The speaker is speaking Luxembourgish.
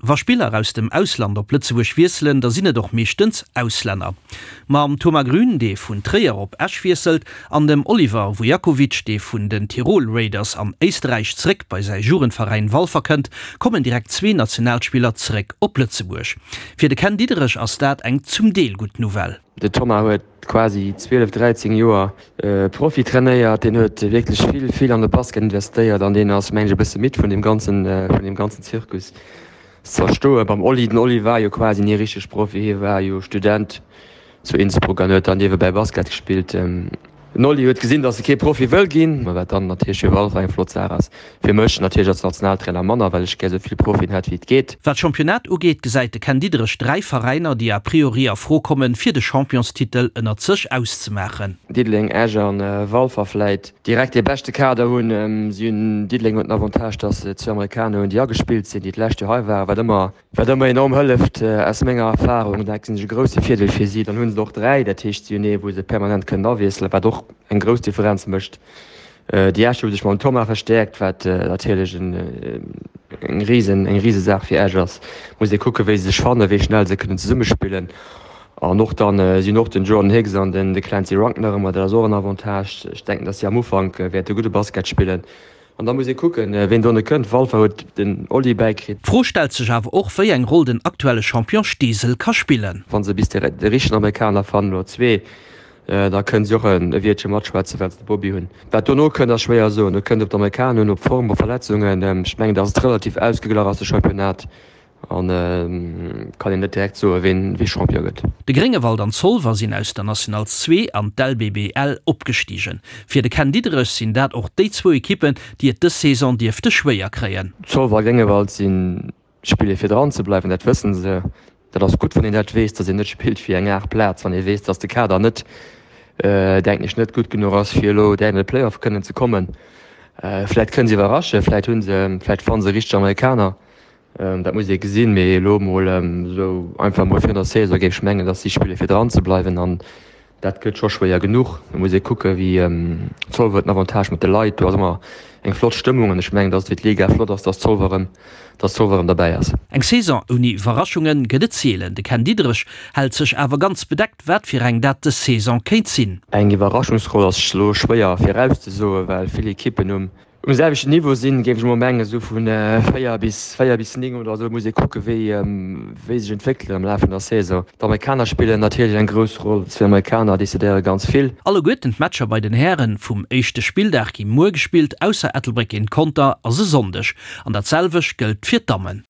Wa Spiller aus dem Ausland op Lëtzebuerg wiesselen, da sinn et och meeschtens Auslänner. Mam Thomas Grün, dee vun Tréier op Esch wiesselt, an dem Oliver Vujakovic, dee vun den Tirol Raiders an Éisterräich zeréck bei säi Jugendveräin Walfer kënnt, kommen direkt zwee Nationalspiller zeréck op Lëtzebuerg. Fir de Ken Diederich ass dat eng zum Deel gutt Nouvelle. De Thomas huet quasi 12, 13 Joer Profi trainéiert. Deen huet wierklech vill, vill an de Basket investéiert an deen ass, mengen ech, e bësse midd vun deem ganzen, vun deem ganzen Zirkus. Ze verstoen beim Oli. Den Oli war jo quasi ni richteg Profi, hie war jo Student zu Innsbruck an huet dann niewebäi Basket gespillt. Den Oli huet gesinn, datt e kee Profi wëll ginn, wat dann natierlech fir Walfer eng flott Saach ass. Fir mech natierlech als Nationaltrainer manner, well ech gär esou vill Profien hätt wéi et geet. Wat d'Championnat ugeet, gesäit de Ken Diederich 3 Veräiner, déi a priori a Fro kommen, fir de Championstitel ënnert sech auszemaachen. Diddeleng, Esch a Walfer vläit direkt dee beschte Kader hunn. Si hunn, Diddeleng huet den Avantage, datt se zwee Amerikaner hunn, déi agespillt sinn, déi d'lescht Joer hei waren, wat ëmmer Wat ëmmer enorm hëlleft, aus menger Erfahrung, dat sinn e grousse Virdeel fir si. Dann hu se och 3, dat heescht si hunn ee wou se permanent kënnen awiesselen, wat och eng grouss Differenz mécht. Déi Escher hu sech mam Thomas verstäerkt, wat natierlech eng risen, eng Risesaach fir Esch ass. Muss ee kucken, wéi se sech fannen, wéi schnell se kënnen zesummespillen. An och dann, si hunn och den Jordan Hicks an den de Clancy Runk nach ëmmer, dat ass och en Avantage. Ech denken, datt si am Ufank wäerte gudde Basket spillen. An da muss ee kucken, ween dono kënnt. Walfer huet den Oli bäikritt. D'Fro stellt sech awer och, wéi eng Roll den aktuelle Champion Steesel ka spillen. Wa se bis de richtegen Amerikaner fannen, oder zwee, da kënnen si och e Wiertche matschwätzen, well se de Bobby hunn. Wat dono kënnt, ass schwéier soen. Do kënnt et op d'Amerikaner un, op d'Form, op Verletzungen. Ech mengen, datt et relativ ausgeglach ass, de Championnat. An kann een net direkt soen, ween wee Champion gëtt. De Gréngewald an Zolwer sinn aus der National 2 an d'LBBL opgestigen. Fir de Ken Diederich sinn dat och déi zwou Ekippen, déi et dës Saison dierfte schwéier kréien. Zolwer a Gréngewald si spille fir dran ze bleiwen, dat wëssen se. Dat ass gutt, wann een dat weess, datt een net spillt fir eng 8 Plaz, wann ee weess, datt de Kader net, denken ech, net gutt genuch ass, fir elo direkt an de Playoff kënnen ze kommen. Vläit kënnen se iwwerraschen, vläit hu se, vläit fanne se richteg Amerikaner. Dat muss ee gesinn, mee elo mol esou einfach mol virun der Saison géif ech mengen, datt si spille fir dran ze bleiwen an dat gëtt scho schwéier genuch. Et muss ee kucke wéi Zolwer huet den Avantage mat de Leit, do ass ëmmer eng flott Stëmmung an ech mengen, datt et fir d'Liga flott ass, datt Zolwer erëm, datt Zolwer erëm derbäi ass. Eng Saison ouni Iwwerraschunge gëtt et seelen. De Ken Diederich hält sech awer ganz bedeckt, wat fir eng dat dës Saison kéint sinn. Eng Iwwerraschungsroll ass elo schwéier virauszesoen, well vill Ekippen um Um selwechten Niveau sinn, géif ech emol mengen, esou vu 4 bis 4 bis 9 oder esou. Muss ee kucke wéi wéi sech entwéckelen am Laf vun der Saison. D'Amerikaner spillen natierlech eng grouss Roll. Zwee Amerikaner decidéiere ganz vill. Alleguerten d'Matcher bei den Hären vum éischte Spilldag gi muer gespillt, ausser Ettelbréck géint Conter ass e Sonndeg. An dat selwecht gëllt fir d'Dammen.